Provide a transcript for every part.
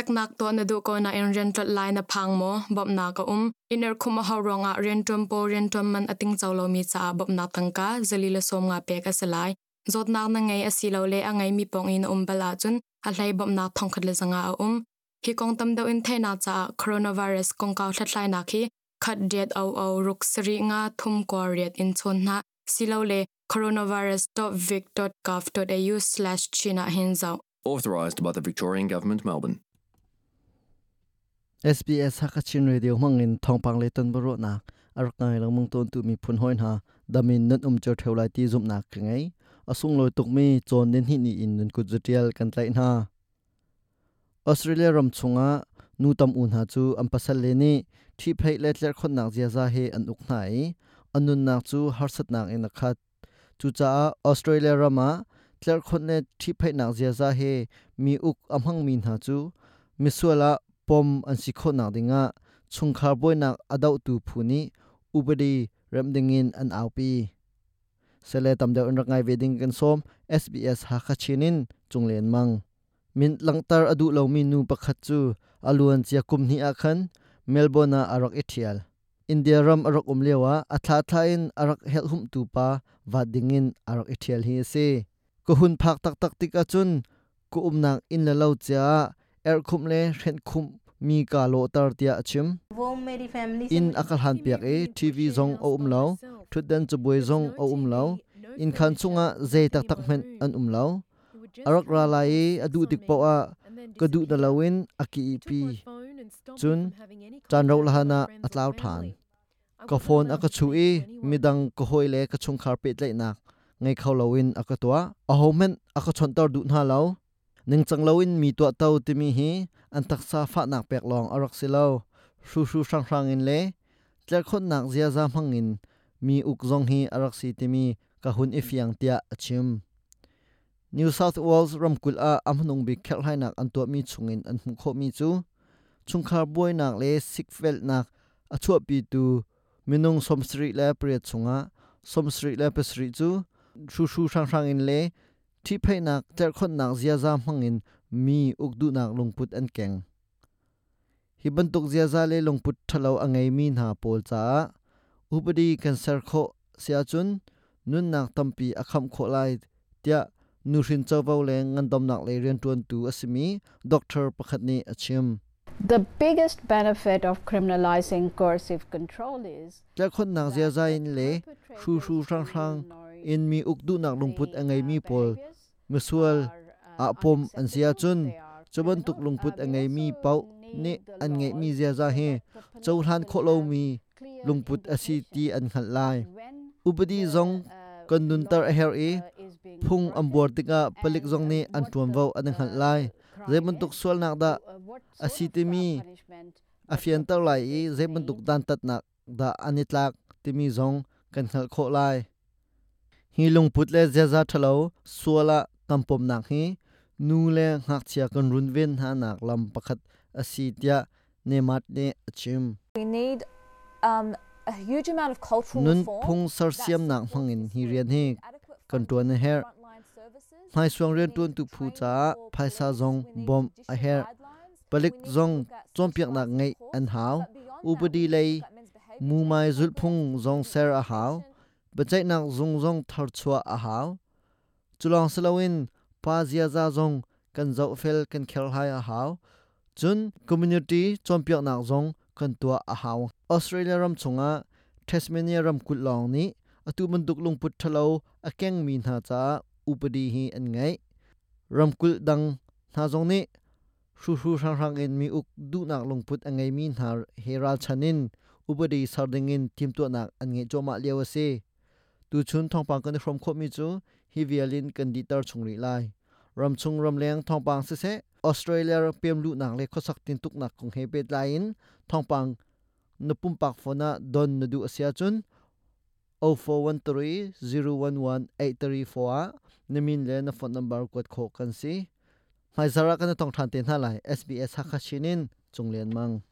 Cheknak tuah na duh ko nain rian tlolh lai na phang maw? Bawmhnak a um. Inn erhkhumh a hauh ruangah rianṭuan pawl rianṭuan man a tingco lomi caah bawmhnak tangka 150 pek a si lai. Zawtnak na ngei asilole a ngeimi pawng i na um bal ahcun a hlei bawmhnak 1500 a um. Hi kong tam deuh in theihnak caah coronavirus kongkau hlathlainak hi khat riat o o ruk sarih nga thum kua riat in chawn hna silole coronavirus.vic.gov.au/chin ah hin zoh. Authorised by the Victorian Government, Melbourne. SBS Hakachin Radio hmangin thawngpang le tonbiaruahnak a rak ngai lengmang tawntu miphun hawi hna damin nan um cio ṭheo lai ti zumhnak ka ngei. A sunglawi tukmi cawn ni hnih ni in nan kut zatial kan tlaih hna. Australia ram chungah nu tam u hna cu an pasal le nih ṭhihphaih le tlerhkhonhnak ziaza he an uk hna i an nunnak cu harsatnak in a khat. Cucaah Australia ram ah tlerhkhonh le ṭhihphaihnak ziaza he mi uk a hmangmi hna cu misual ah pom an si khawhnak dingah chungkhar buainak a dohtu phu nih upadi remh dingin an aupi. Sele tam deuh in rak ngai ve ding kan sawm. SBS Hakha Chin in Cunglen Mang. Min langhter a duh lomi nu pakhat cu a luancia kum hnih ah khan Melbourne ah a rak i ṭhial. India ram a rak um lioah a thla in a rak helhhumhtu pa vat dingin a rak i ṭhial hi a si. Ka hun phak taktak tik ahcun ka umnak inn le lo cia ah erhkhumh le hrenhkhumh mi kaa lawhter tiah a chim. Inn a ka hlanpiak i TV zong a um lo, ṭhutdan cabuai zong a um lo, innkhan chungah zei taktak hmanh an um lo. A rak ra lai i a duh tik paoh ah ka duh na loin a ka ihpi. Cun caan rauh lahan ah a tlau ṭhan. Ka phone a ka chuh i midang ka hawile ka chungkhar pehtlaihnak ngei kho loin a ka tuah. Ahohmanh a ka chawnhter duh hna lo. Ningcang loin mi tuahto timi hi an taksa fahnak pek lawng a rak si lo. Hruhru hranghrang in le tlerhkhonhnak ziaza hmangin mi uk zong hi a rak si timi ka hun i fiang tiah a chim. New South Wales ramkulh ah a hmanung bik kherhhlainak an tuahmi chungin an hmuh khawhmi cu chungkhar buainak le sikvelhnak a chuahpitu minung 78 chungah 77 cu hruhru hranghrang in le ṭhihphaihnak tlerhkhonhnak ziaza hmangin mi uk duhnak lungput an keng. Hi bantuk ziaza le lungput ṭhalo a ngeimi hna pawl caah upadi kan ser khawh si ahcun nunnak tampi a khamh khawh lai tiah nuhrin covo le ngandamnak lei rianṭuantu a simi doctor pakhat nih a chim. The biggest benefit of criminalizing coercive control is Tlerhkhonhnak ziaza in le hruhru hranghrang in mi uk duhnak lungput a ngeimi pawl misual ah pom an si ahcun cu bantuk lungput a ngeimi paoh nih an ngeihmi ziaza hi cohlan khawh lomi lungput a si ti an hngalh lai. Upadi zong kan nunter a herh i phung an buar tikah palik zong nih an ṭuanvo an i hngalh lai. Zei bantuk sualnak dah a si timi a fianter lai i zei bantuk dantatnak dah an i tlak timi zong kan hngalh khawh lai. Hi lungput le ziaza ṭhalo sual ah kan pomnak hi nu le ngakchia kan runven hnanak lam pakhat a si tiah Nemat nih a chim. We need a huge amount of cultural Nunphung sersiamnak hmangin hi rian hi kan ṭuan a herh. Hmaisuang rianṭuantu phu caah phaisa zong bawmh a herh. Palik zong cawnpiaknak ngeih an hau. Upadi lei mumai zulhphung zong ser a hau. Biaceihnak zung zong tharchuah a hau. Cu lawng si loin pa ziaza zong kan zohfel kan kherhlai a hau. Cun community cawnpiaknak zong kan tuah a hau. Australia ram chungah Tasmania ramkulh lawng nih atu bantuk lungput ṭhalo a kengmi hna caah upadi hi an ngeih. Ramkulh dang hna zong nih hruhru hranghrang in mi uk duhnak lungput a ngeimi hna he ralchan in upadi ser dingin timhtuahnak an ngeih cuahmah lio a si. Tuchun thawngpang kan i hrawm khawhmi cu hi vial in kan dihter chung rih lai. Ramchung ramleng thawngpang siseh, Australia pemluhnak le khuasak tintuknak kong he pehtlai in thawngpang na pumpak phone ah don na duh a si ahcun 0413 011 834 ah na min le na phone number kuat khawh kan si. Hmaizarh ah kan i tong ṭhan te hna lai. SBS Hakha Chin in Cung Lian Mang.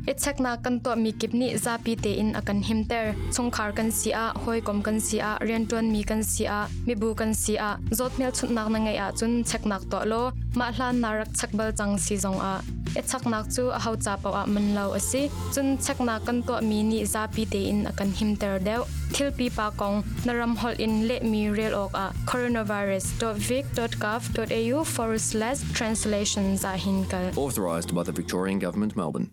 I cheknak kan tuahmi kip nih zapi tein a kan himter. Chungkhar kan si ah, hawikom kan si ah, rianṭuanmi kan si ah, mibu kan si ah, zawt hmelchunhnak na ngeih ahcun cheknak tuah law Mah hlan na rak chek bal cang si zongah i cheknak cu aho ca paoh ah man lo a si. Cun cheknak kan tuahmi nih zapi tein a kan himter deuh. Thil pipa kong na ram holh in lehmi rel awkah coronavirus.vic.gov.au forward slash translation ah hin kal. Authorised by the Victorian Government, Melbourne.